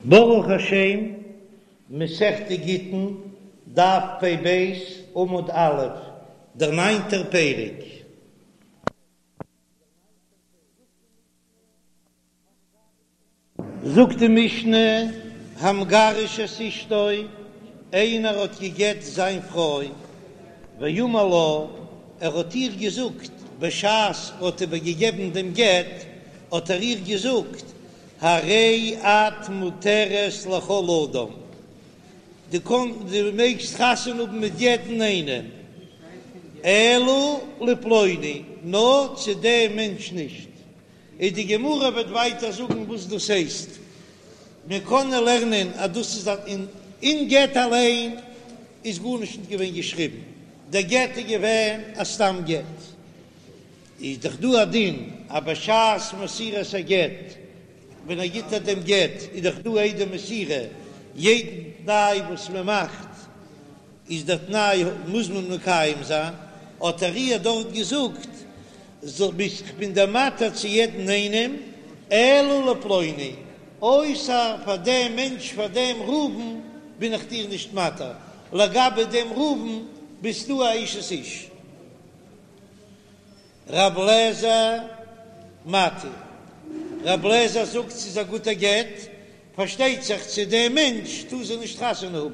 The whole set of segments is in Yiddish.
ברוך השם, מסכת גיטין, דף פ"ב, עמוד א', דער ניינטער פרק. זאגט די משנה, המגרש את אשתו, איינער האט גע'גט זיין פרוי, ואמר לה, ער האט איר געזאגט, בשעת ער האט איבערגעגעבן דעם גט, האט ער איר געזאגט, הרי את מותרת לכל אדם, דו קענסט, דו מעגסט חתונה האבן מיט יעדן איינעם, אלא לפלוני, נאר צו דעם מענטש נישט. און די גמרא וועט ווייטער זאגן וואס דאס הייסט, מיר קענען לערנען אז דאס איז א אין גט אליין איז גארנישט נישט געווען געשריבן, דער גט איז געווען א סתם גט, איז דאך דא א דין אז בשעת מסירת הגט ווען ער גיט איר דעם גט איז דאך דא עדי מסירה, יעדן תנאי וואס מען מאכט איז דער תנאי מוז מען מקיים זיין, האט ער איר דארט געזאגט זאל ביסט כ'בין דיר מתיר צו יעדן איינעם אלא לפלוני, אויסער פאר דעם מענטש פאר דעם ראובן בין איך דיר נישט מתיר, לגבי דעם ראובן ביסטו א אשת איש. רב לעזער מתיר, רב לעזער זאגט ס'איז א גוטע גט, פארשטייט זיך צו דעם מענטש טאר זי נישט חתונה האבן.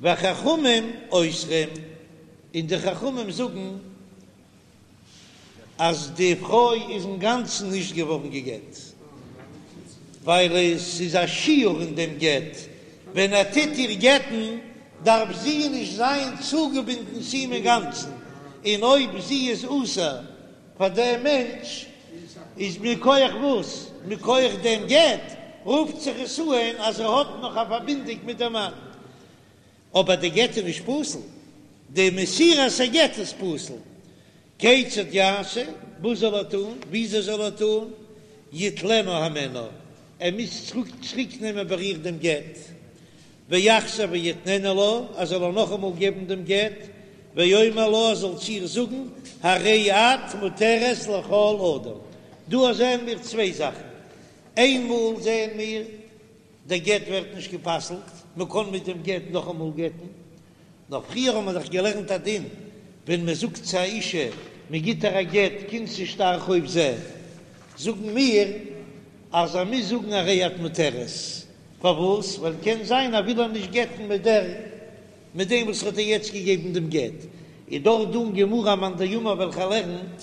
וחכמים אוסרים, און די חכמים זאגן אז די פרוי איז אינגאנצן נישט געווארן גע'גט, ווייל עס איז א שיור אין דעם גט, ווען ער טוט איר גט'ן דארף זי נישט זיין צוגעבינדן צו אים אינגאנצן, און אויב זי איז אסור פאר דעם מענטש איז מכח וואס? מכח דעם גט רופט זיך עס אן אז ער האט נאך א פארבינדונג מיט דעם מאן, אבער די גט איז נישט פסול, די מסירת הגט איז פסול. כיצד יעשה? וואס זאל ער טון? וויאזוי זאל ער טון? יטלנה הימנה, ער מוז צוריק נעמען ביי איר דעם גט, ויחזור ויתננה לה, ער זאל איר נאכאמאל געבן דעם גט, ויאמר לה, ער זאל צו איר זאגן, הרי את מותרת לכל אדם. דא זעען מיר צוויי זאכן, איינמאל זעען מיר, דער גט ווערט נישט גע'פסל'ט, מען קען מיט דעם גט נאכאמאל גט'ן, נאר פריער האט מען דאך געלערנט א דין, ווען מען זאגט צו א אישה, מען גיט איר א גט, כנסי שטר חוב זה, זאגן מיר אז ער מוז זאגן הרי את מותרת, פארוואס? ווייל קען זיין ער וויל איר נישט גט'ן מיט דער מיט דעם וואס האט איר יעצט געגעבן דעם גט, איז דאך דא אין גמרא א מאן דאמר וועלכער לערנט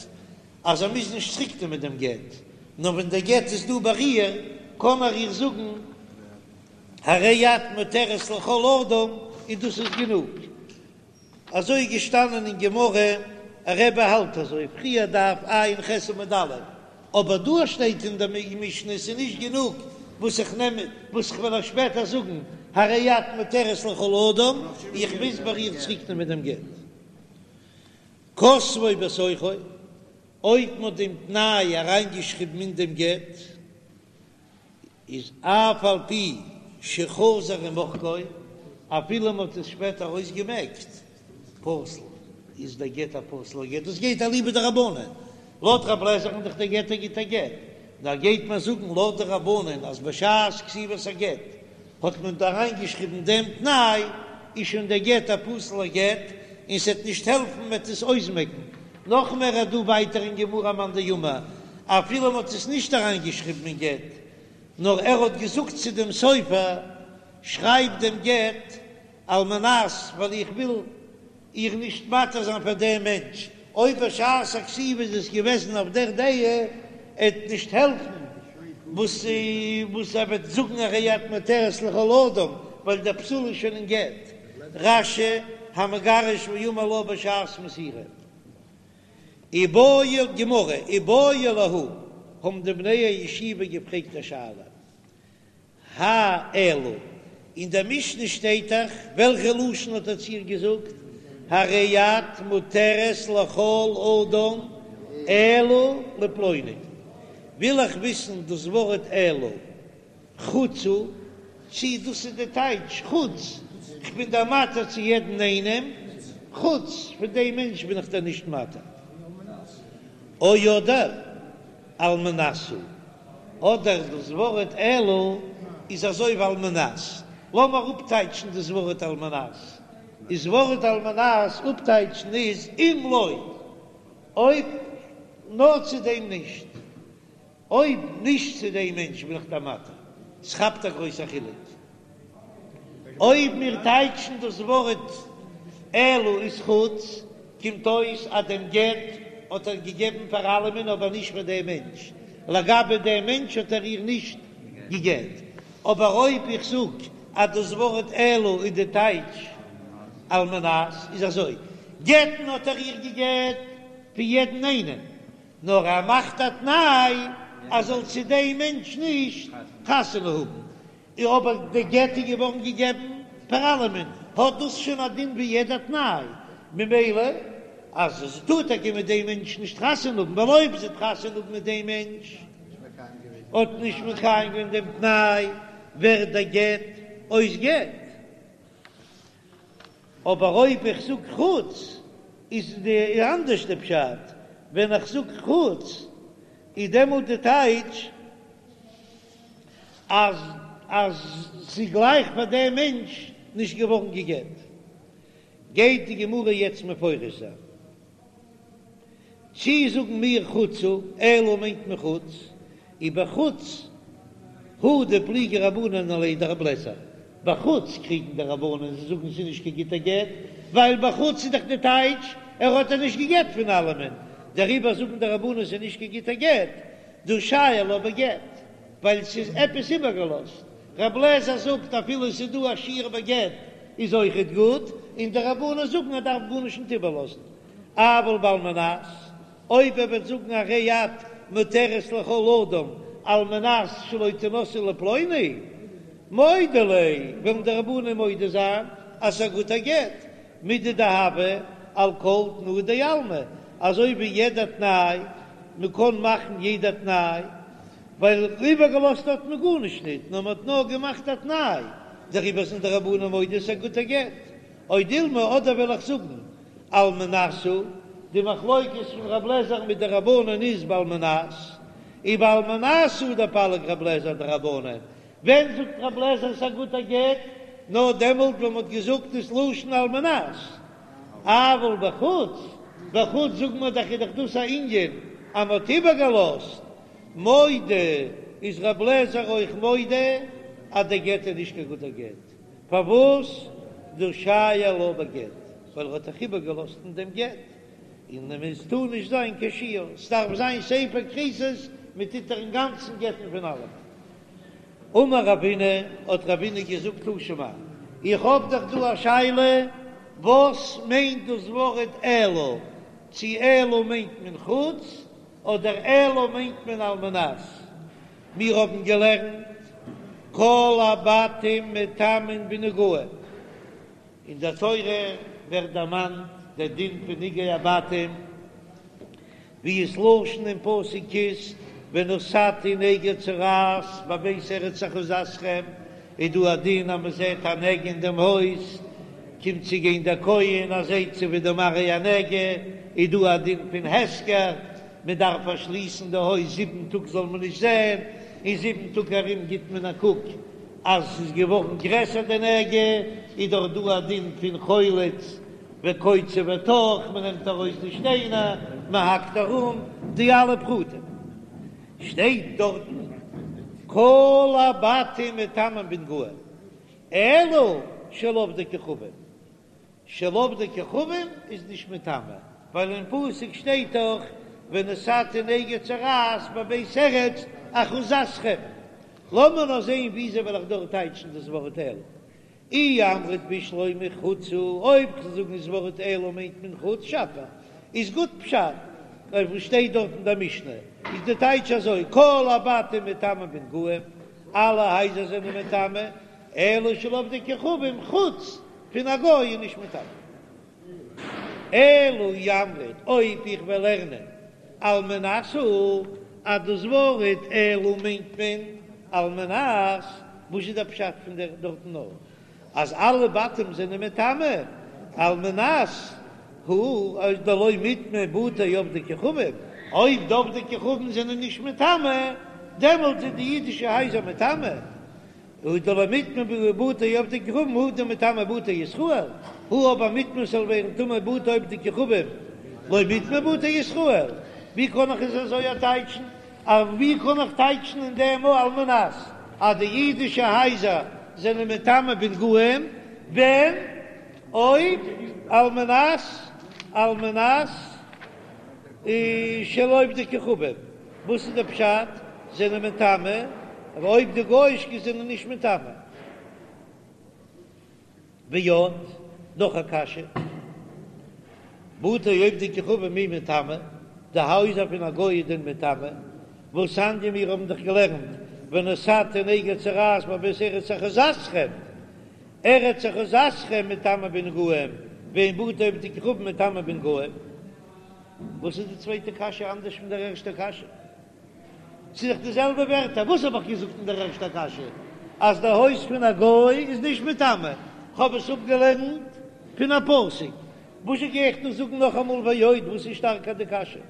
אז ער מוז נישט צוריק נעמען דעם גט, נאר ווען דער גט איז דא ביי איר קען ער איר זאגן הרי את מותרת לכל אדם און דאס איז גענוג. אזוי איז געשטאנען אין גמרא, רבי האלט אזוי, פריער דף ע"ח עמוד א', אבער דא שטייט אין די משנה ס'איז נישט גענוג וואס איך נעם וואס איך וועל אייך שפעטער זאגן, הרי את מותרת לכל אדם, איך מוז ביי איר צוריק נעמען דעם גט. כתבו בתוכו, אויב מ'האט דעם תנאי אריינגעשריבן אין דעם גט, איז אף על פי שחזר ומחקו, אפילו מען האט עס שפעטער אויסגעמעקט, פסול, איז דער גט א פסול'ער גט, דאס גייט אליבא דרבנן, לויט רב לעזער'ן איז דאך דער גט א גוטער גט, נאר גייט מען זאגן לויט די רבנן אז בשעת כתיבת הגט האט מען דא אריינגעשריבן דעם תנאי, איז שוין דער גט א פסול'ער גט, און ס'עט נישט העלפן מ'עט עס אויסמעקן, נאך מער איז דא ווייטער אין גמרא א מאן דאמר אפילו מ'האט עס נישט אריינגעשריבן אין גט, נאר ער האט געזאגט צו דעם סופר, שרייב דעם גט על מנת ווייל איך וויל איר נישט מתיר זיין פאר דעם מענטש, אויב בשעת הכתיבה איז עס געוועזן אויף דער דעה, עט נישט העלפן וואס וואס ער וועט זאגן הרי את מותרת לכל אדם, ווייל דער פסול איז שוין אין גט. רש"י, המגרש ואמר לה בשעת מסירה. איבעיא, גמרא, איבעיא להו, האבן די בני הישיבה געפרעגט א שאלה, האי אלא, אין דער משנה שטייט דאך, וועלכע לשון האט ער צו איר געזאגט, הרי את מותרת לכל אדם אלא לפלוני, וויל איך וויסן דאס ווארט אלא, חוץ הוא, צי דאס איז די טייטש חוץ, כ'בין דיר מתיר צו יעדן איינעם, חוץ פון דעם מענטש בין איך דיר נישט מתיר. או אדער על מנת הוא. אדער דאס ווארט אלא איז אזוי ווי על מנת. לאמיר אפטייטשן דאס ווארט על מנת. איז ווארט על מנת אפטייטשן איז אם לא, אויב נאר צו דעם נישט. אויב נישט צו דעם מענטש בין איך דיר מתיר. ס'כאפט א גרויסע חילוק. אויב מיר טייטשן דאס ווארט אלא איז חוץ, קומט אויס אז דעם גט האט ער געגעבן פאר אלעמען אבער נישט פאר דעם מענטש, לגבי דעם מענטש האט ער איר נישט געגעט. אבער אויב איך זאג אז דאס ווארט אלא איז די טייטש על מנת, איז אזוי, גט'ן האט ער איר געגעט פון יעדן איינעם, נאר ער מאכט א תנאי אז זאל צו דעם מענטש נישט חתונה האבן, אבער די גט איז געווארן געגעבן פאר אלעמען, האט דאס שוין א דין ווי יעדע תנאי, ממילא אז זי טאר טאקע מיט דעם מענטש נישט חתונה האבן, ווייל אויב זי וועט חתונה האבן מיט דעם מענטש האט נישט מקיים געווען דעם תנאי, ווערט דער גט אויס גט. אבער אויב איך זאג חוץ איז די אנדערש די פשט, ווען איך זאג חוץ איז דעמאלט די טייטש אז אז ס'איז גלייך פאר דעם מענטש נישט געווארן גע'גט. גייט די גמרא יעצט מפרש זיין. צי זאגן מיר חוץ הוא, אלא מיינט מען חוץ, ובחוץ הוא דפליגי רבנן עליה דרבי אליעזר, בחוץ קריגן די רבנן, זיי זאגן ס'איז נישט קיין גוטע גט, ווייל בחוץ איז דאך די טייטש ער האט איר נישט געגעט פון אלעמען, דעריבער זאגן די רבנן ס'איז נישט קיין גוטע גט, דהא שייר לה בגט, ווייל ס'איז עפעס איבערגעלאזט, רבי אליעזר זאגט אפילו ס'איז דא א שיור בגט איז אויכעט גוט, און די רבנן זאגן ער דארף גארנישט נישט איבערלאזן. אבל בעל מנת, אויב ער וועט זאגן הרי את מותרת לכל אדם על מנת שלא תנשאי לפלוני, מודו ליה, וועלן די רבנן מודה זיין אז ס'איז א גוטע גט, מידי דהוה על כל תנאי דעלמא, אזוי ווי יעדע תנאי, מ'קען מאכן יעדע תנאי, ווייל איבערגעלאזט האט מען גארנישט ניט, נאר מ'האט נאר געמאכט א תנאי, דעריבער זענען די רבנן מודה ס'איז א גוטע גט. או דילמא, אדער וועל איך זאגן על מנת הוא, די מחלוקת פון רב לעזער מיט די רבנן איז בעל מנת, ובעל מנת הוא דפליג רב לעזער אדרבנן, ווען זאגט רב לעזער ס'א גוטע גט? נאר דעמאלט ווען מ'האט געזאגט דאס לשון על מנת, אבל בחוץ, בחוץ זאגן מיר דאך איז דאך דאס א ענין אז מ'האט איבערגעלאזט, מודה איז רב לעזער אויך מודה אז דער גט איז נישט קיין גוטער גט. פארוואס דהא שייר לה בגט? ווייל ער האט דאך איבערגעלאזט אין דעם גט, און עס טאר נישט זיין קיין שיור, ס'דארף זיין ספר כריתות, מען טוט איר אינגאנצן גט'ן פון אלעם. אמר רבינא, האט רבינא געזאגט תא שמע, איך האב דאך דא א שאלה, וואס מיינט דאס ווארט אלא? צו אלא מיינט מען חוץ, אדער אלא מיינט מען על מנת? מיר האבן געלערנט כל הבתים מטמאין בנגעים, אין דער תורה ווערט דערמאנט דער דין פון נגעי הבתים, ווי עס לשון אין פסוק איז ונתתי נגע צרעת בבית ארץ אחוזתכם, איז דא א דין אז מען זעט א נגע אין דעם הויז, קומט צו גיין דער כהן ער זעט צו ווי די מראה הנגע, איז דא א דין פון הסגר, מען דארף פארשליסן די הויז זיבן טאג זאל מען נישט זען, אין זיבן טאג ארום גיט מען א קוק אז ס'איז געווארן גרעסער די נגע, איז דאך דא א דין פון חולץ וקוצה וטח, מען נעמט ארויס די שטיינער, מען האקט ארום, די אלע פרטים שטייט דארטן, כל הבתים מטמאין בנגעים, אלא של עובדי כוכבים. של עובדי כוכבים איז נישט מטמא, ווייל אין פסוק שטייט דאך ונתתי נגע צרעת בבית ארץ אחוזתכם. לאמיר נאר זען וויאזוי וועל איך דארט טייטשן דאס ווארט אלא. אי אמרת בשלמא חוץ הוא, אויב כ'זאל זאגן דאס ווארט אלא מיינט מען חוץ שפיר, איז גוט פשט, אויף וואס שטייט דארט אין דער משנה איז די טייטש אזוי, כל הבתים מטמאין בנגעים, אלע הייזער זענען מטמא, אלא של עובדי כוכבים חוץ פון א גוי איז נישט מטמא. אלא אי אמרת אויב איך וועל לערנען על מנת הוא אז דאס ווארט אלא מיינט מען על מנת, וואס איז דער פשט פון דער דארטן נאר אז אלע בתים זענען מטמא על מנת הוא אז דלא מיטמאו בתי עובדי כוכבים, אויב די עובדי כוכבים זענען נישט מטמא. דעמאלט זענען די אידישע הייזער מטמא, הא דלא מיטמאו בתי עובדי כוכבים הא דמיטמאו בתי ישראל, הא אבער מיטמאו ס'זאל ווערן טמא בתי עובדי כוכבים לא מיטמאו בתי ישראל, ווי קען איך עס אזוי טייטשן? ווי קען איך טייטשן אין דעם על מנת אז די אידישע הייזער זענען מטמא בנגעים ווען אויב על מנת על מנת של עובדי כוכבים וואס איז די פשט זענען מטמא אבער אויב די גויאישקע זענען נישט מטמא? ועוד, נאך א קשיא, בתי עובדי כוכבים מי מיטמאי, די הייזער פון א גוי איז דען מטמא? והתניא מיר האבן דאך געלערנט ונתתי נגע צרעת בבית ארץ אחוזתכם, ארץ אחוזתכם מטמאה בנגעים, ואין בתי עובדי כוכבים מטמא בנגעים. וואס איז די צווייטע קשיא אנדערש פון דער ערשטער קשיא? ס'איז דאך די זעלבע ווערטער, וואס האב איך געזאגט אין דער ערשטער קשיא? אז די הויז פון א גוי איז נישט מטמא, כ'האב עס אפגעלערנט פון א פסוק, וואזשע גיי איך דא זאגן נאכאמאל ועוד, וואס איז שטארקער די קשיא?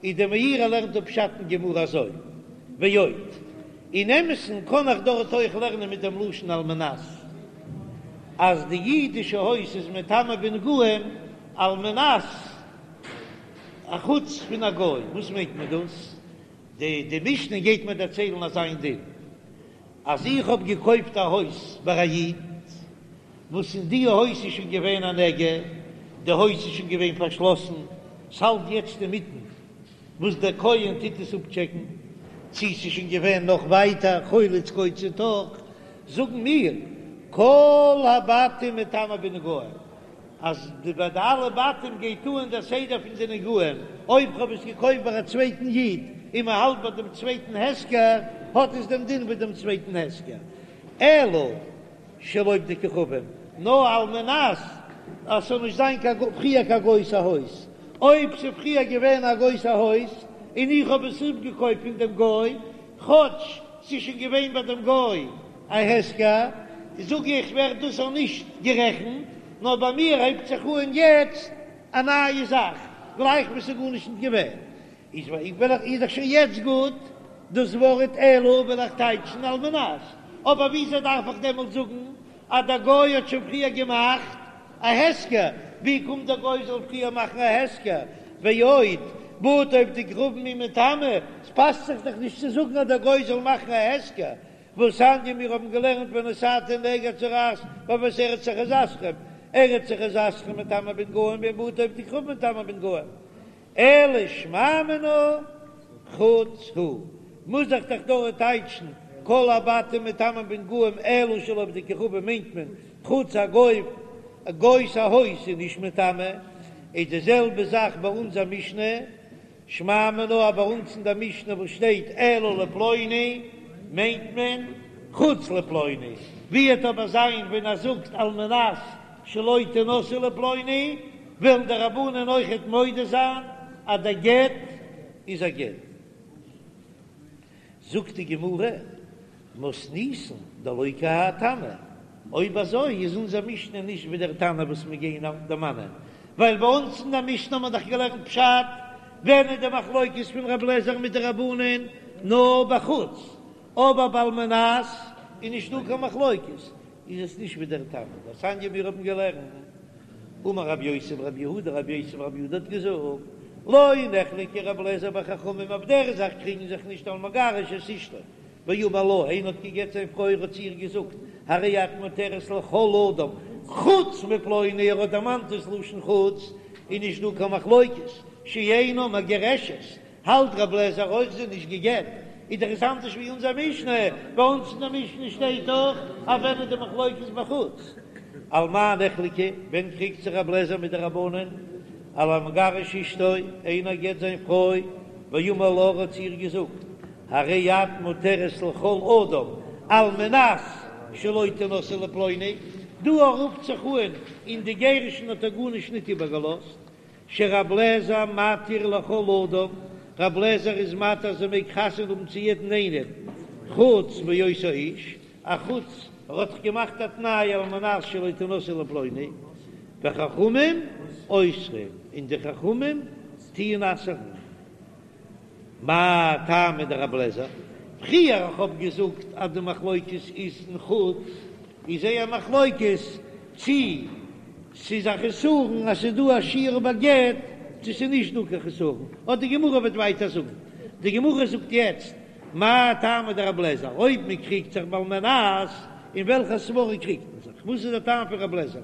איז דער מאירי לערנט אפ פשט אין גמרא אזוי, ועוד, אין אמת'ן קען איך דארט אויך לערנען מיט דעם לשון על מנת אז די אידישע הויז איז מטמא בנגעים על מנת א חוץ פון א גוי, וואס מיינט מען דאס? די די משנה גייט מיר דערציילן אזא איין דין, אז איך האב געקויפט א הויז ביי א איד, וואס אין די הויז איז שוין געווען א נגע, די הויז איז שוין געווען פארשלאסן, ס'האלט יעצט אינמיטן וואס דער כהן טוט עס אפטשעקן, צי ס'איז שוין געווען נאך ווייטער חולץ קוצץ תוך, זאגן מיר כל הבתים מטמא בנגעים, אז די ביי די אלע בתים גייט אן דער סדר פון די נגעים, אויב כ'האב עס געקויפט ביי א צווייטן איד און מען האלט ביי דעם צווייטן הפקר, האט עס דעם דין ווי דעם צווייטן הפקר, אלא של עובדי כוכבים, נאר על מנת אז ס'זאל נישט זיין קיין פריער קיין גוי'ס א הויז, אויב ס'איז פריער געווען א גוי'ס א הויז און איך האב עס אפגעקויפט פון דעם גוי, כאטש ס'איז שוין געווען ביי דעם גוי א הפקר, זאג איך ווערט דאס אויך נישט גערעכנט, נאר ביי מיר הייבט זיך אן יעצט א נייע זאך, גלייך ווי ס'איז גארנישט נישט געווען. איז וועל איך איז דאך שוין יעצט גוט דאס ווארט אלא וועל איך טייטשן על מנת, אבער וויאזוי דארף איך דעמאלט זאגן אז דער גוי האט שוין פריער געמאכט א הפקר, ווי קומט דער גוי זאל פריער מאכן א הפקר, ועוד, בתי עובדי כוכבים מי מיטמאי, ס'פאסט זיך דאך נישט צו זאגן אז דער גוי זאל מאכן א הפקר, והתניא מיר האבן געלערנט ונתתי נגע צרעת בבית ארץ אחוזתכם, ארץ אחוזתכם מטמאה בנגעים ואין בתי עובדי כוכבים מטמאין בנגעים, אלא שמע מינה חוץ הוא, מוז איך דאך דארט טייטשן כל הבתים מטמאין בנגעים אלא של עובדי כוכבים מיינט מען חוץ א גוי, א גוי'ס א הויז איז נישט מטמא, איז די זעלבע זאך ביי אונזער משנה, שמע מינה אז ביי אונז אין דער משנה וואס שטייט אלא לפלוני מיינט מען חוץ לפלוני, ווי וועט אבער זיין ווען ער זאגט על מנת שלא תנשאי לפלוני, וועלן די רבנן אויכעט מודה זיין אז דער גט איז א גט. זאגט די גמרא, מתניתין דלא כי האי תנא, אויב אזוי איז אונזער משנה נישט ווי דער תנא וואס מיר גייען דערמאנען, ווייל ביי אונז אין דער משנה האט מען דאך געלערנט פשט, ווען איז די מחלוקת פון רב לעזער מיט די רבנן נאר בחוץ, אבער ביי על מנת איז נישט דא קיין מחלוקת, איז עס נישט ווי דער תנא דתניא מיר האבן געלערנט, אמר רב יוסי ברב יהודה, רב יוסי ברב יהודה האט געזאגט, לא נחלקו רב אליעזר וחכמים אויף דער זאך קריגן זיך נישט על המגרש את אשתו, ואמר לה, איינער האט גע'גט זיין פרוי ער האט צו איר געזאגט, הרי את מותרת לכל אדם חוץ מפלוני, ער האט דערמאנט דאס לשון חוץ, איז נישט דא קיין מחלוקת, שאינה מגורשת, האלט רב לעזער אויך זי איז נישט גע'גט, איז דאך עס אנדערש ווי אונזער משנה, ביי אונז אין דער משנה שטייט דאך אז ווען איז די מחלוקת בחוץ. על מה נחלקו, ווען קריגט זיך רב לעזער מיט די רבנן? על המגרש אשתו, איינער גט זיין פרוי, ואמר לה ער האט צו איר געזאגט, הרי את מותרת לכל אדם על מנת שלא תנשאי לפלוני, דא רופט זיך אן אין די גירושין האט ער גארנישט ניט איבערגעלאזט, שרב לעזער מתיר לכל אדם, רב לעזער איז מתיר אז זי מעג חתונה האבן צו יעדן איינעם חוץ מאותו האיש, א חוץ ער האט דאך געמאכט א תנאי על מנת שלא תנשאי לפלוני, וחכמים אוסרים, און די חכמים טוען אסר'ן. מאי טעמא דרב לעזער? פריער איך האב געזאגט אז די מחלוקת איז אין חוץ, איז זייער מחלוקת צי ס'איז א חסרון אז ס'איז דא א שיור בגט צו ס'איז נישט דא קיין חסרון, אט די גמרא וועט ווייטער זאגן, די גמרא זאגט יעצט מאי טעמא דרבי אליעזר, אויב מען קריגט זיך בעל מנת, אין וועלכע סברא קריגט מען זיך, וואס איז דער טעם פון רבי אליעזר,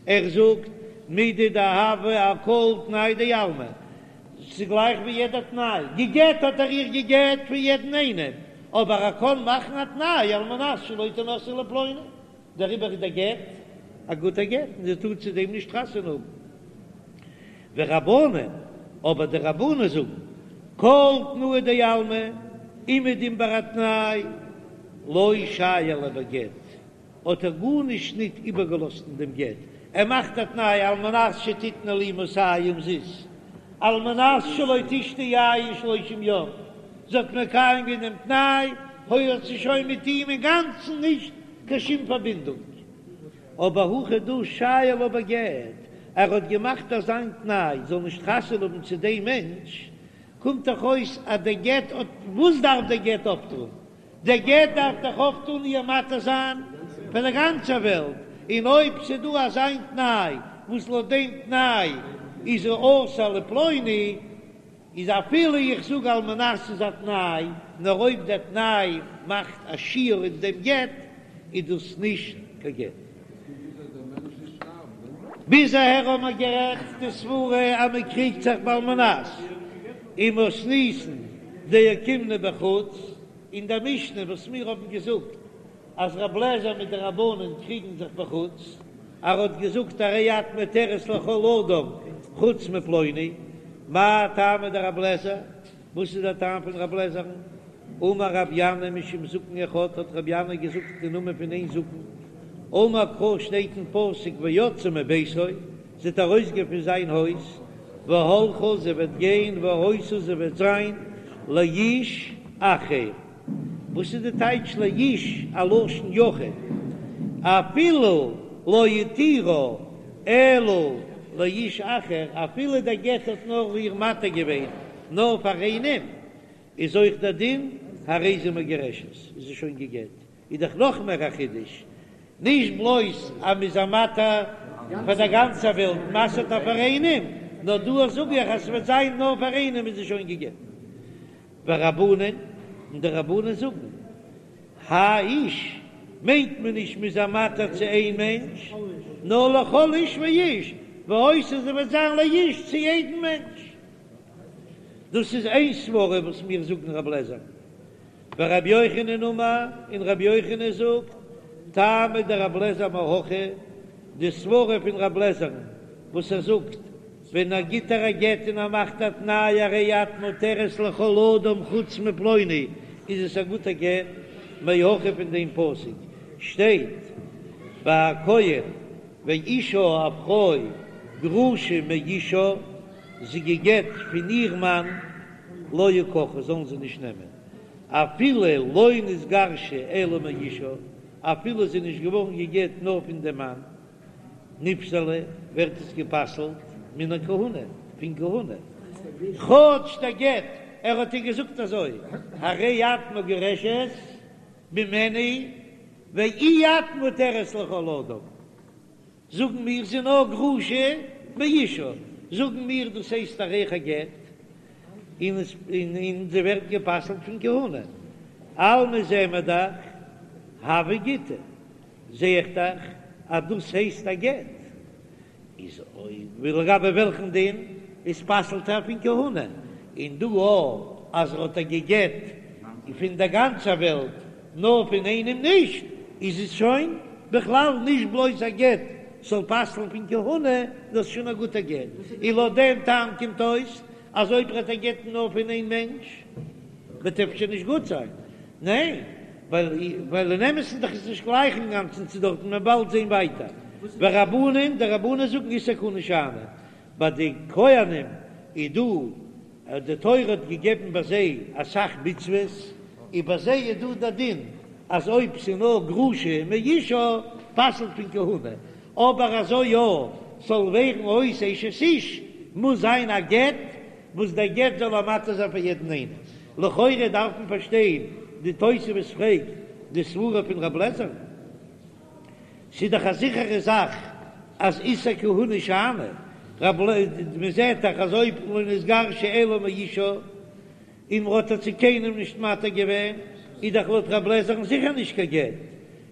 ער זאגט מידי דהוה אכל תנאי דעלמא, ס'איז גלייך ווי יעדע תנאי, געגעט האט ער איר געגעט פון יעדן איינעם, אבער ער קען מאכן א תנאי על מנת שלא תנשאי לפלוני, דעריבער איז דער גט א גוטער גט און זי טאר צו דעם נישט חתונה האבן. ורבנן, אבער די רבנן זאגן, כל תנאי דעלמא, אומעדום ביי א תנאי, לא שייר ליה בגט, האט ער גארנישט ניט איבערגעלאזט אין דעם גט, ער מאכט א תנאי על מנת שתתני לי מאתים זוז, על מנת שלא תשתי יין שלושים יום, זי האט מקיים געווען דעם תנאי, האט זי שוין מיט אים אינגאנצן נישט קיין שום פארבינדונג. אבער הכא דא שייר לה בגט, ער האט געמאכט אזיין תנאי זאל נישט חתונה האבן צו דעם מענטש, קומט דאך אויס אז דער גט האט, וואס דארף דער גט אפטון? דער גט דארף דאך אויפטון איר מתיר זיין פאר דער גאנצער וועלט, און אויב ס'דא אזיין תנאי וואס לויט דעם תנאי איז זי אסור לפלוני, איז אפילו איך זאג על מנת איז א תנאי, נאר אויב דער תנאי מאכט א שיור אין דעם גט, איז דאס נישט קיין גט. ביז אהער האבן מיר גערעדט די סברה אז מען קריגט זיך בעל מנת ומתניתין דאוקימנא בחוץ, אין דער משנה וואס מיר האבן געזאגט אז רב לעזער מיט די רבנן קריגן זיך בחוץ, ער האט געזאגט הרי את מותרת לכל אדם חוץ מפלוני, מאי טעמא דרב לעזער? וואס איז דער טעם פון רב לעזער'ן? אמר רב ינאי משום זקן אחד האט רב ינאי געזאגט אין נאמען פון איין זקן, אמר קרא שטייט אין פסוק ויצאה מביתו, זי וועט ארויסגיין פון זיין הויז, והלכה זי וועט גיין והיתה זי וועט זיין לאיש אחר, וואס איז די טייטש לאיש א לשון יחיד, אפילו לא התירה אלא לאיש אחר, אפילו דער גט האט נאר איר מתיר געווען נאר פאר איינעם, איז אויך דער דין הרי זו מגורשת, איז זי שוין גע'גט, איז דאך נאך מער א חידוש, נישט בלויז אז מ'איז איר מתיר פאר דער גאנצער וועלט, מ'אסר'ט איר פאר איינעם, נאר דא זאג איך אז ס'וועט זיין נאר פאר איינעם איז זי שוין גע'גט. ורבנן, און די רבנן זאגן, האי איש, מיינט מען נישט מ'איז איר מתיר צו איין מענטש, נאר לכל איש ואיש, והיתה זי וועט זיין לאיש צו יעדן מענטש. דאס איז איין סברא וואס מיר זאגן רב לעזער. ורבי יוחנן אמר, און רבי יוחנן זאגט, טעמא דרב לעזער מהכא, די סברא פון רב לעזער'ן וואס ער זאגט, ווען ער גיט איר א גט און ער מאכט א תנאי הרי את מותרת לכל אדם חוץ מפלוני, איז עס א גוטע גט, מהכא פון דעם פסוק שטייט ביי א כהן ואשה א פרוי גרושה מאישה, זי גע'גט פון איר מאן, לא יקחו זאלן זיי נישט נעמען, אפילו לא נתגרשה אלא מאישה, אפילו זי איז נישט געווארן גע'גט נאר פון דעם מאן, נפסלה, ווערט עס גע'פסל'ט מן הכהונה, פון כהונה, כאטש דער גט, ער האט איר געזאגט אזוי, הרי את מגורשת ממני ואי את מותרת לכל אדם. זאגן מיר זי נאר גרושה מאישה, זאגן מיר דאס הייסט אויך א גט, און עס און זי ווערט גע'פסל'ט פון כהונה, אלמא זעען מיר דאך הוי גיטא, זע איך דאך אז דאס הייסט א גט, איז אויב לגבי וועלכן דין איז פסל'ט ער פון כהונה, און דא אויך אז ער האט איר גע'גט פון דער גאנצער וועלט נאר פון איינעם נישט, איז עס שוין בכלל נישט בלויז א גט זאל פסל'ן פון כהונה, דאס איז שוין א גוטע גט, און לויט דעם טעם קומט אויס אז אויב ער האט איר גע'גט נאר פון איין מענטש וועט אפשר נישט גוט זיין, ניין? ווייל אין אמת'ן דאך איז נישט גלייך אינגאנצן צו דארטן, מען באלד זען ווייטער. ורבנן, די רבנן זאגן איסור כהונה שאני, ביי די כהנים איז דא, די תורה האט געגעבן ביי זיי אסאך מצוות, און ביי זיי איז דא די דין אז אויב ס'איז נאר גרושה מאישה פסל'ט פון כהונה, אבער אזוי יא ס'זאל ווערן אויס אשת איש מוז זיין א גט וואס דער גט זאל איר מתיר זיין פאר יעדן איינעם. לכאורה דארף מען פארשטיין. די תוספות פרעגט די סברה פון רב לעזער, ס'איז דאך א זיכערע זאך אז איסור כהונה שאני, רב ל, מען זעט דאך אז אויב לא נתגרשה אלא מאישה און מ'האט איר צו קיינעם נישט מתיר געווען, איז דאך לויט רב לעזער'ן זיכער נישט קיין גט,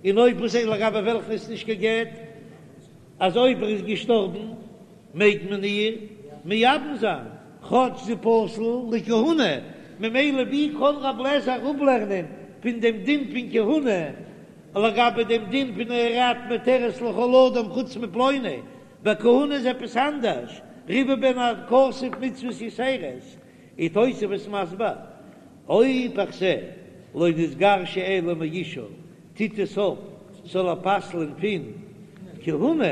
און אויב וואס איז לגבי וועלכן איז נישט קיין גט, אז אויב ער איז געשטארבן מעג מען איר מייבם זיין, כאטש זי פסול לכהונה, ממילא ווי קען רב לעזער אפלערנען פון דעם דין פון כהונה לגבי דעם דין פון הרי את מותרת לכל אדם חוץ מפלוני, ביי כהונה איז עפעס אנדערש, ריבה בהן הכתוב מצוות יתירות, איז תוספות מסביר, אויב איך זע לא נתגרשה אלא מאישה טוט עס אויף זאל ער פסל'ען פון כהונה,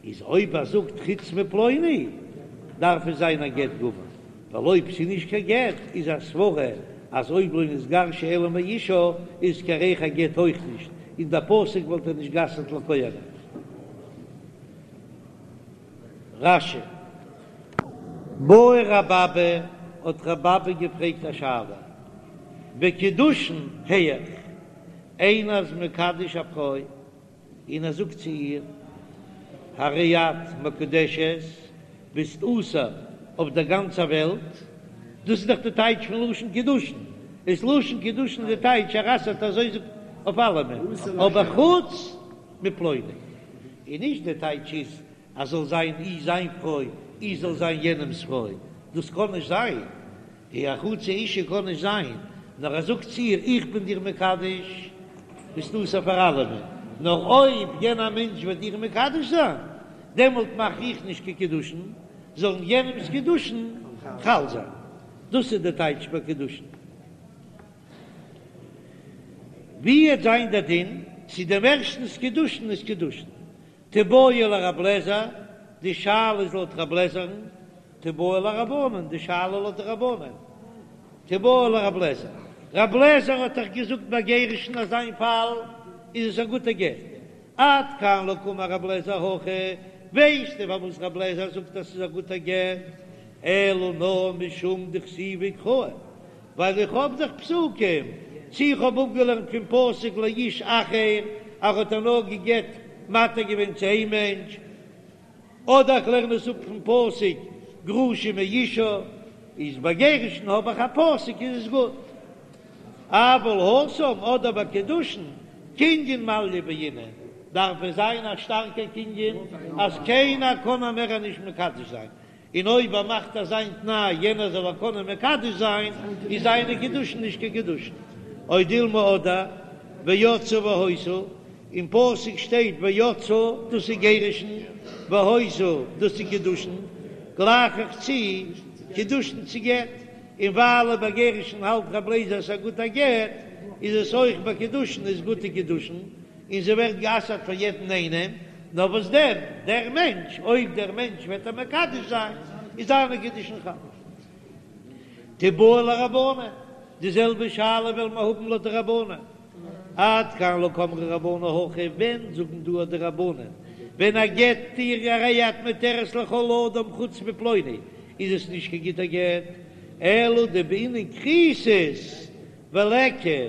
איז אויב ער זאגט חוץ מפלוני דארף עס זיין א גט גמור, ווייל אויב ס'איז נישט קיין גט איז א סברה אז אויב לא נתגרשה אלא מאישה איז קיין ריח הגט אויך נישט, און דער פסוק וואלט ער נישט גע'אסר'ט לכהנים. רש"י. בעי רב אבא, האט רב אבא געפרעגט א שאלה, בקידושין היאך, איינער איז מקדש א פרוי און ער זאגט צו איר, הרי את מקודשת, ביסט אסור אויף דער גאנצער וועלט, דאס איז דאך די טייטש פון לשון קידושין, איז לשון קידושין די טייטש ער אסר'ט אזוי זאגט אויף אלעמען, אבער חוץ מפלוני, און נישט די טייטש איז אז זאל זיין אי זיין פרוי אי זאל זיין יענעמס פרוי, דאס קען נישט זיין, די א חצי אישה קען נישט זיין, נאר ער זאגט צו איר איך בין דיר מקדש, ביסט אסור פאר אלעמען, נאר אויב יענער מענטש וועט דיר מקדש זיין, דעמאלט מאך איך נישט קיין קידושין, זאלן יענעמס קידושין חל זיין, דאס איז די טייטש ביי קידושין. ווי וועט זיין דער דין צו דעם ערשטנס קידושין איז קידושין? תיבעי לרב לעזער, די שאלה איז לויט רב לעזער'ן, תיבעי לרבנן, די שאלה לויט די רבנן, תיבעי לרב לעזער, רב לעזער האט דאך געזאגט ביי גירושין אז אין פאל איז עס א גוטע גט, עד כאן לא קאמר רב לעזער הכא, ווייסטו פארוואס רב לעזער זאגט אז ס'איז א גוטע גט, אלא נאר משום דכתיבי קראי, ווייל איך האב דאך פסוקים, צו איך האב אפגעלערנט פון פסוק לאיש אחר, אז ער האט איר נאר גע'גט מתיר געווען צו איין מענטש, אדער איך לערן עס אפ פון פסוק גרושה מאישה, איז ביי גירושין האב איך א פסוק איז עס גוט. אבל התם אדער ביי קידושין, קנין מעליא בעינן, דארף עס זיין א שטארקע קנין אז קיינער קען איר מער נישט מקדש זיין, און אויב ער מאכט אזא תנאי יענער זאל איר קענען מקדש זיין, איז זיינע קידושין נישט קיין קידושין. או דילמא אדער ויצאה והיתה, אין פסוק שטייט ויצאה דאס איז גירושין, והיתה דאס איז קידושין, גלייך איך צו קידושין צו גט, און ווייל ביי גירושין האלט רב לעזער ס'איז א גוטע גט, איז עס אויך ביי קידושין איז גוטע קידושין, און זי ווערט גע'אסר'ט פאר יעדן איינעם, נאר וואס דען, דער מענטש, אויב דער מענטש וועט איר מקדש זיין, איז זיינע קידושין חל. תיבעי לרבנן, די זעלבע שאלה וועלן מיר האבן לויט די רבנן. עד כאן לא קאמרי רבנן הכא, ווען זאגן דא די רבנן, ווען ער גט איר הרי את מותרת לכל אדם חוץ מפלוני, איז עס נישט קיין גוטער גט, אלא דבעינן כריתות וליכא,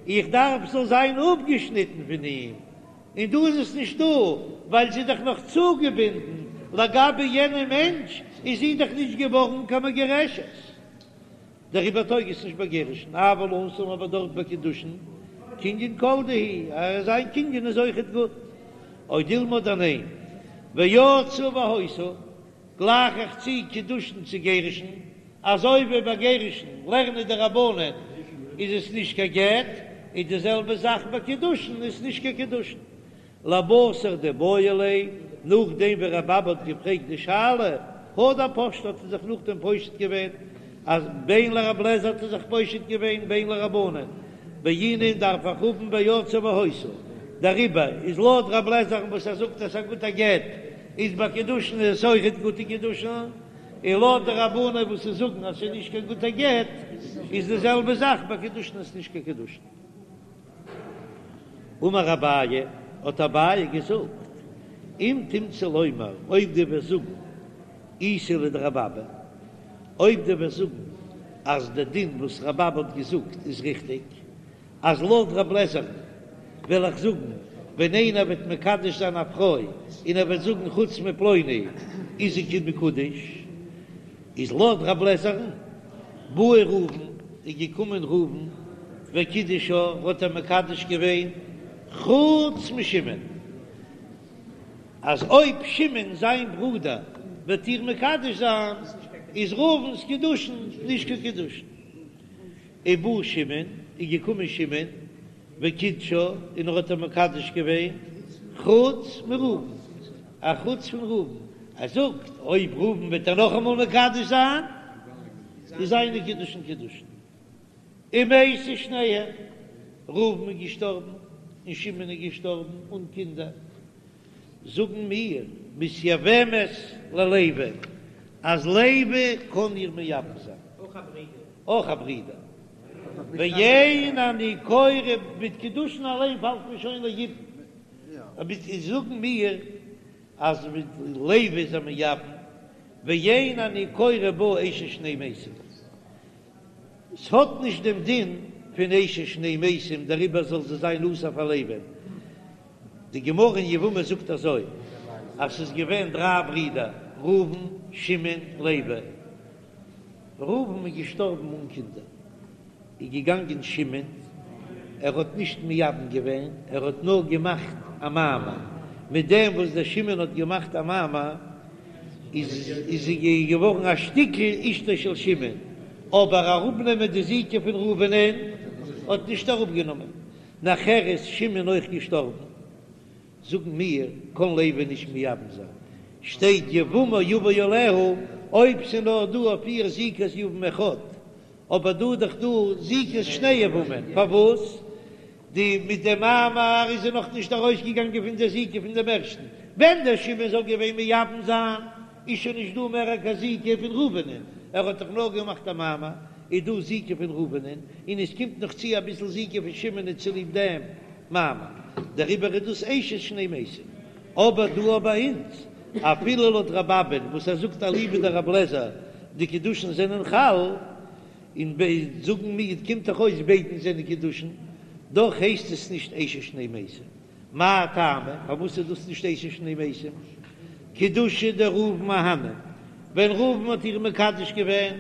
איך דארף זאל זיין אפגעשניטן פון אים, און דא איז עס נישט דא, ווייל זי איז דאך נאך צוגעבינדן, לגבי יענעם מענטש איז זי דאך נישט געווארן קיין מגורשת, דעריבער טויג עס נישט ביי גירושין, אבל התם אבער דארט ביי קידושין, קנין כל דהו, אז זיין קנין איז אויכעט גוט, או דילמא אדער ניין, ויצאה והיתה, גלייך איך צו קידושין צו גירושין, אזוי ווי ביי גירושין לערנען די רבנן איז עס נישט קיין גט, איז די זעלבע זאך ביי קידושין איז נישט קיין קידושין. לבתר דבעיא ליה, נאכדעם ווי רב אבא האט געפרעגט די שאלה, הדר פשטה האט ער זיך נאכדעם פושט געווען, אז בין לרב לעזער האט ער זיך פושט געווען בין לרבנן, בעינן דארף איך האבן ויצאה והיתה, דעריבער איז לויט רב לעזער'ן וואס ער זאגט אז ס'איז א גוטע גט, איז ביי קידושין איז עס אויכעט גוטע קידושין, און לויט די רבנן וואס זיי זאגן אז ס'איז נישט קיין גוטע גט, איז די זעלבע זאך ביי קידושין איז נישט קיין קידושין. אמר אביי, האט אביי געזאגט, אם תמצא לומר, אויב דו וועסט זאגן איתא לדרבי אבא, אויב דו וועסט זאגן. אז די דין וואס רבי אבא האט געזאגט איז ריכטיג, אז לויט רב לעזער'ן וועל איך זאגן, ווען איינער וועט מקדש זיין א פרוי און ער וועט זאגן חוץ מפלוני איז זי מקודש, איז לויט רב לעזער'ן בא ראובן איז געקומען ראובן וקידשה האט ער מקדש געווען חוץ משמעון, אז אויב שמעון זיין ברודער וועט איר מקדש זיין איז ראובן'ס קידושין נישט קיין קידושין. ובא שמעון, איז געקומען שמעון, וקידשה, און ער האט איר מקדש געווען, חוץ מראובן, א חוץ פון ראובן, ער זאגט, אויב ראובן וועט איר נאכאמאל מקדש זיין, איז זיינע קידושין קידושין. ומתו שניהם, ראובן איז געשטארבן, און שמעון איז געשטארבן אן קינדער. זאגן מיר, מתייבמת ללוי, אז לוי קען איר מייבם זיין. אויך א ברודער. ואין אני קורא מיט קידושין אליין פאלט מען שוין ליבום. אבער זאגן מיר אז מיט לוי איז ער מייבם, ואין אני קורא בה אשת שני מתים. ס'האט נישט דעם דין פון אשת שני מתים דעריבער זאל זי זיין אסור פאר לוי'ן. די גמרא אין יבמות זאגט אזוי אז ס'איז געווען דריי ברידער ראובן, שמעון, לוי. ראובן איז געשטארבן אן קינדער, איז געגאנגען שמעון, ער האט נישט מייבם געווען, ער האט נאר געמאכט א מאמר, מיט דעם וואס דער שמעון האט געמאכט א מאמר איז זי געווארן א שטיקל אשתו של שמעון, אבער אראפנעמען די זיקה פון ראובנ'ען האט נישט אראפגענומען, נאכער איז שמעון אויך געשטארבן. זאגן מיר, קאן לוי נישט מייבם זיין, שטייט יבמה יבא עליה, אויב ס'איז נאר דא אויף איר זיקת יבם אחד, אבער דא איז דאך דא זיקת שני יבמים, פארוואס די מיט די מאמר איז זי נאך נישט ארויסגעגאנגען פון די זיקה פון דעם ערשטן, ווען דער שמעון זאל געווען מייבם זיין איז שוין נישט דא מער קיין זיקה פון ראובנ'ען, ער האט דאך נאר געמאכט א מאמר, איז דא זיקה פון ראובנ'ען, און עס קומט נאך צו אביסל זיקה פון שמעונ'ען צוליב דעם. מאמר, דעריבער איז דאס אשת שני מתים. אבער דא ביי אונז, אפילו לויט רבי אבא'ן וואס ער זאגט אליבא דרבי אליעזר די קידושין זענען חל, און ב זאגן מיר קומט דאך אויס ביידן זענען קידושין, דאך הייסט עס נישט אשת שני מתים. מאי טעמא? פארוואס איז דאס נישט אשת שני מתים? קידושי דראובן אהני, ווען ראובן האט איר מקדש געווען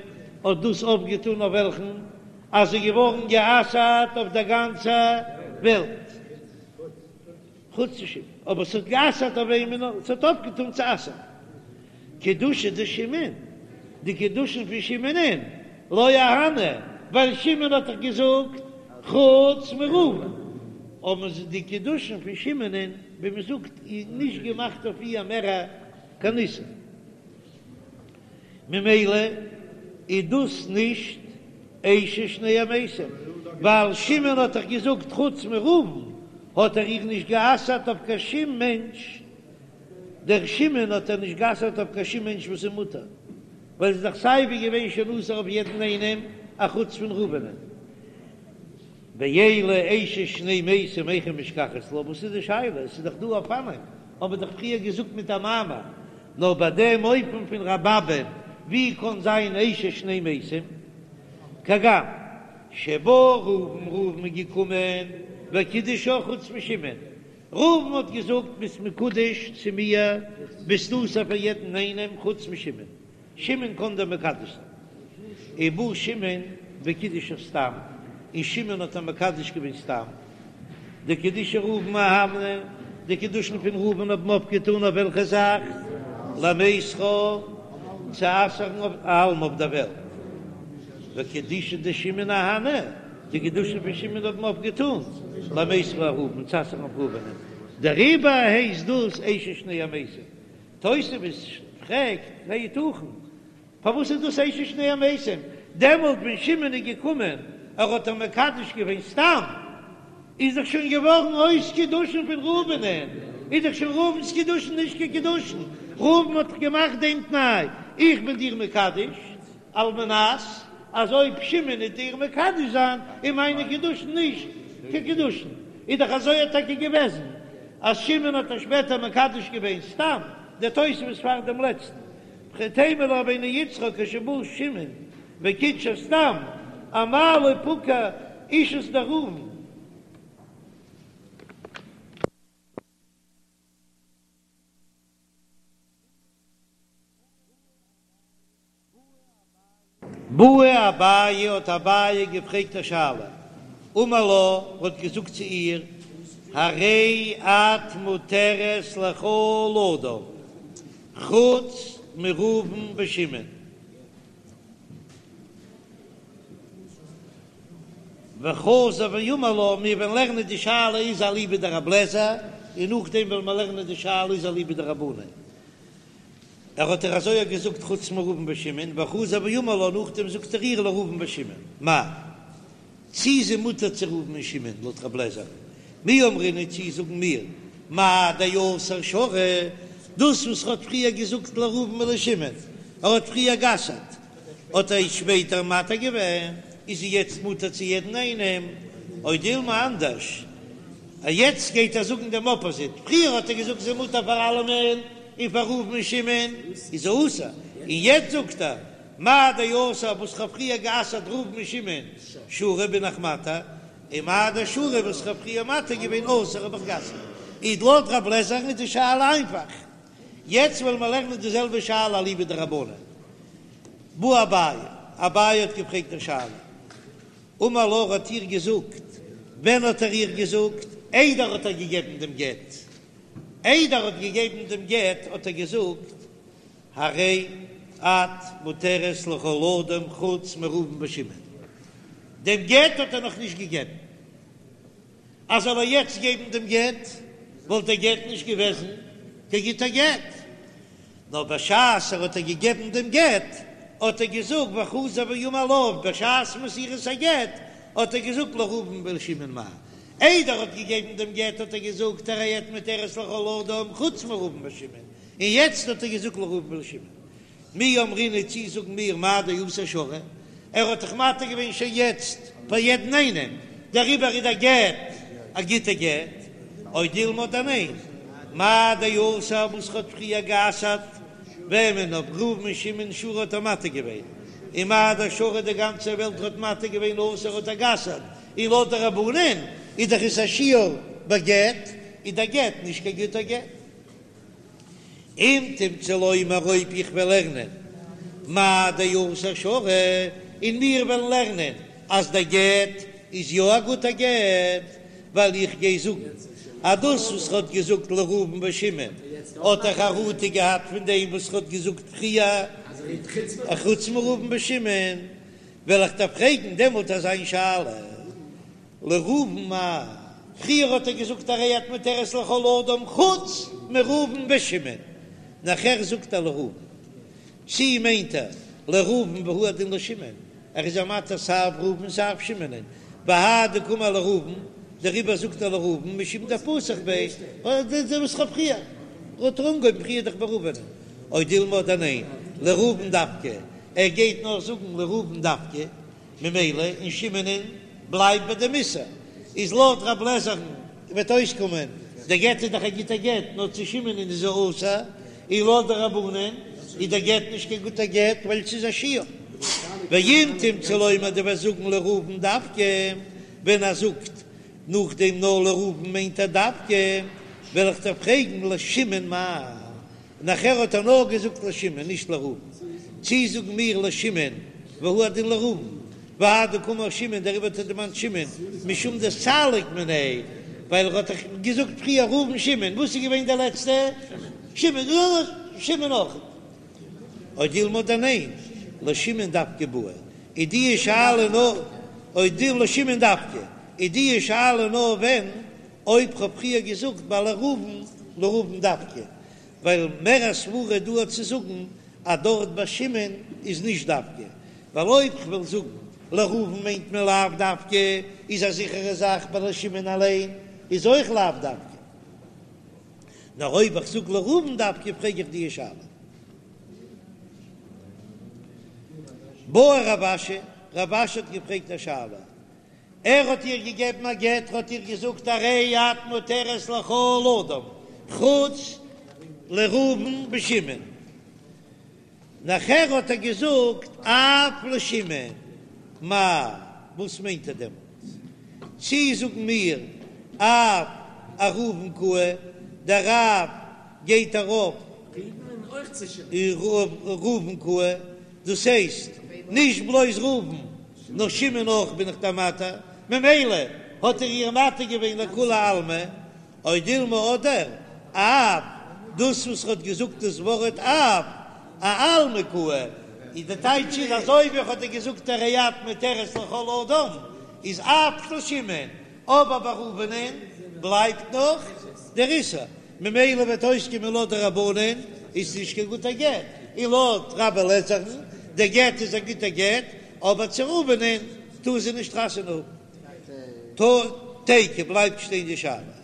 האט דאס אויפגעטאן אויף וועלכן? אז זי איז געווארן גע'אסר'ט אויף דער גאנצער וועלט, חוץ צו שמעון, אבער ס'האט גע'אסר'ט אויף וועמען נאר ס'האט אויפגעטאן צו אסר'ן. קידושי דשמעון, די קידושין פון שמעונ'ען, לא אהני, ווייל שמעון האט דאך געזאגט חוץ מראובן, האבן זיי די קידושין פון שמעונ'ען, ווי מ'זאגט, נישט געמאכט אויף איר מער קיין איסור. ממילא איז דאס נישט אשת שני המתים, ווייל שמעון האט דאך געזאגט חוץ מראובן האט ער איר נישט גע'אסר'ט אויף קיין שום מענטש, דער שמעון האט ער נישט גע'אסר'ט אויף קיין שום מענטש וואס איז מותר, ווייל ס'איז דאך סייווי געווען שוין אסור אויף יעדן איינעם אחוץ פון ראובנ'ען. ואלא אשת שני מתים היכי משכחת לה, וואס איז די שאלה? עס איז דאך דא אופנים, האבן מיר דאך פריער געזאגט מיט א מאמר, נאר ביי דעם אופן פון רבי אבא'ן, ווי קען זיין אשת שני מתים? כגון שבא ראובן, ראובן איז געקומען וקידשה חוץ משמעון, ראובן האט געזאגט ביסט מקודש צו מיר, ביסט אסור פאר יעדן איינעם חוץ משמעון, שמעון קען דיר מקדש זיין. ובא שמעון וקידשה סתם, און שמעון האט איר מקדש געווען סתם. דקידושי ראובן אהני, די קידושין פון ראובן האבן אויפגעטאן אויף וועלכע זאך? למיסרה, צו אסר'ן אויף אעלמא אויף דער וועלט. וקידושי דשמעון אהני, די קידושין פון שמעון האבן אויפגעטאן למיסרה אראובן, צו אסר'ן אויף ראובנ'ען. דעריבער הייסט דאס אשת שני המתים. תוספות פרעגט, היתכן? פארוואס איז דאס אשת שני המתים? דעמאלט ווען שמעון איז געקומען, ער האט איר מקדש געווען סתם, איז דאך שוין געווארן אויס קידושין פון ראובנ'ען, איז דאך שוין ראובן'ס קידושין נישט קיין קידושין, ראובן האט דאך געמאכט דעם תנאי, איך בין דיר מקדש, על מנת אז אויב שמעון וועט איר מקדש זיין, איז מיינע קידושין נישט קיין קידושין, איז דאך אזוי האט טאקע געוועזן, אז שמעון האט איר שפעטער מקדש געווען סתם, דער תוספות פאר דעם לעצטן, וכי תימא לרבינו יצחק כשבא שמעון. בקיצור סתם אמאי לא פקע אישות דראובן. בעי אביי האט אביי געפרעגט א שאלה, אמר לה, האט געזאגט צו איר, הרי את מותרת לכל אדם חוץ מראובן ושמעון. וחזר ואמר לה, מיר וועלן לערנען די שאלה איז אליבא דרבי אליעזר, און נאכדעם וועלן מיר לערנען די שאלה איז אליבא דרבנן. ער האט איר אזוי געזאגט חוץ מראובן ושמעון, וחזר ואמר לה, נאכדעם זאגט ער איר לראובן ושמעון, מאי? צי איז זי מותר צו ראובן און שמעון לויט רב לעזער? מי אמרינן צי זאגן מיר מאי דאסר שרי, דאס וואס ער האט פריער געזאגט לראובן ולשמעון, ער האט פריער גע'אסר'ט, האט ער שפעטער מתיר געווען, איז זי יעצט מותר צו יעדן איינעם, או דילמא אנדערש, יעצט גייט ער זאגן דעם אפאזיט, פריער האט ער געזאגט זי מותר פאר אלעמען און פאר ראובן און שמעון איז זי אסור, און יעצט זאגט ער מאי דאסר וואס כ'האב פריער גע'אסר'ט ראובן און שמעון שרי בין איך מתיר, און מאי דשרי וואס כ'האב פריער מתיר געווען אסור האב איך גע'אסר'ט, איז לויט רב לעזער'ן איז די שאלה איינפאך. יעצט וועלן מיר לערנען די זעלבע שאלה אליבא דרבנן. בעי אביי, אביי האט געפרעגט די שאלה. אמר לה ער האט איר געזאגט, ווען האט ער איר געזאגט? איידער האט ער געגעבן דעם גט, איידער האט געגעבן דעם גט האט ער געזאגט, הרי את מותרת לכל אדם חוץ מראובן ושמעון, דעם גט האט ער נאך נישט געגעבן, אז זאל ער יעצט געבן דעם גט וואלט דער גט נישט געוועזן קיין גוטער גט, נאר בשעת ער האט איר געגעבן דעם גט האט ער געזאגט וחזר ואמר לה, בשעת מסירת הגט האט ער געזאגט לראובן ולשמעון מאי, איידער ער האט געגעבן דעם גט האט ער געזאגט הרי את מותרת לכל אדם חוץ מראובן ושמעון, און יעצט האט ער געזאגט לראובן ולשמעון. מי אמרינן צי זאגן מיר מאי דאסר שרי, ער האט דאך מתיר געווען שוין יעצט פאר יעדן איינעם, דעריבער איז דער גט א גוטע גט, או דילמא אדער ניין, מאי דאסר וואס ער האט פריער גע'אסר'ט וועמען אויף ראובן און שמעון שרי האט ער מתיר געווען, און מאי דשרי די גאנצע וועלט האט מתיר געווען אסר האט ער גע'אסר'ט, און לויט די רבנן איז דאך עס א שיור בגט, איז דער גט נישט קיין גוטער גט. אם תמצא לומר אויב איך וועל לערנען מאי דאסר שרי, און מיר וועלן לערנען אז דער גט איז יא א גוטער גט, ווייל איך גיי זאגן אז דאס וואס ר'האט געזאגט לראובן ושמעון האט ער חרטה געהאט פון דעם וואס ר'האט געזאגט פריער חוץ מראובן ושמעון, וועל איך דיר פרעגן דעמאלט אזא שאלה. לראובן מאי, פריער האט ער געזאגט הרי את מותרת לכל אדם חוץ מראובן ושמעון, נאכער זאגט ער לראובן, צי מיינט ער לראובן והוא הדין לשמעון, ער איז א מתיר סיי ראובן סיי שמעונ'ען, והאי דקאמר לראובן, דעריבער זאגט ער לראובן משום דפתח ביה, וואס כ'האב פריער האט ער אנגעהויבן פריער דאך ביי ראובן'ען, או דילמא אדער ניין, לראובן דווקא, ער גייט נאר זאגן לראובן דווקא. ממילא און שמעונ'ען בלייבט ביי דעם איסור, איז לויט רב לעזער'ן וועט אויסקומען דער גט איז דאך א גוטער גט נאר צו שמעונ'ען איז ער אסור, און לויט די רבנן איז דער גט נישט קיין גוטער גט ווייל ס'איז א שיור. ואם תמצא לומר דו וועסט זאגן לראובן דווקא, ווען ער זאגט נאכדעם נאר לראובן מיינט ער דווקא, וועל איך דיר פרעגן לשמעון מאי נאכער האט ער נאר געזאגט לשמעון נישט לראובן, צי זאגן מיר לשמעון והוא הדין לראובן, והאי דקאמר שמעון דעריבער האט ער דערמאנט שמעון משום דסליק מיניה, ווייל ער האט דאך געזאגט פריער ראובן שמעון, וואס איז געווען דער לעצטע? שמעון, שמעון אויך. או דילמא אדער ניין, לשמעון דווקא בעי, איז די שאלה נאר או דילמא לשמעון דווקא, איז די שאלה נאר ווען אויב כ'האב פריער געזאגט ביי לראובן, לראובן דווקא, ווייל מער א סברא דא צו זאגן אז דארט ביי שמעון איז נישט דווקא, ווייל אויב כ'וועל זאגן לראובן מיינט מען לאו דווקא, איז א זיכערע זאך ביי לשמעון אליין איז אויך לאו דווקא, נאר אויב איך זאג לראובן דווקא פרעג איך די שאלה. בעי רב אשי, רב אשי האט געפרעגט א שאלה, ער האט איר געגעבן א גט, האט איר געזאגט הרי את מותרת לכל אדם חוץ לראובן ושמעון. נאכער האט ער געזאגט אף לשמעון, מאי, וואס מיינט ער דעמאלט? צי זאגן מיר אף אראובן קאי, דער אף גייט ארויף אויף ראובן קאי, דאס הייסט נישט בלויז ראובן נאר שמעון אויך בין איך דיר מתיר, ממילא האט ער איר מתיר געווען לכולי עלמא, או דילמא אדער אף, דאס וואס ער האט געזאגט דאס ווארט אף, אעלמא קאי, איז די טייטש איז אזוי ווי ער האט געזאגט הרי את מותרת לכל אדם, איז אף לשמעון, אבער ביי ראובנ'ען בלייבט נאך דער איסור, ממילא וועט אויסקומען לויט די רבנן איז נישט קיין גוטער גט, און לויט רבי אליעזר'ן, דער גט איז א גוטער גט, אבער צו ראובנ'ען טאר זי נישט חתונה האבן. תיקו בלייבט שטיין די שאלה.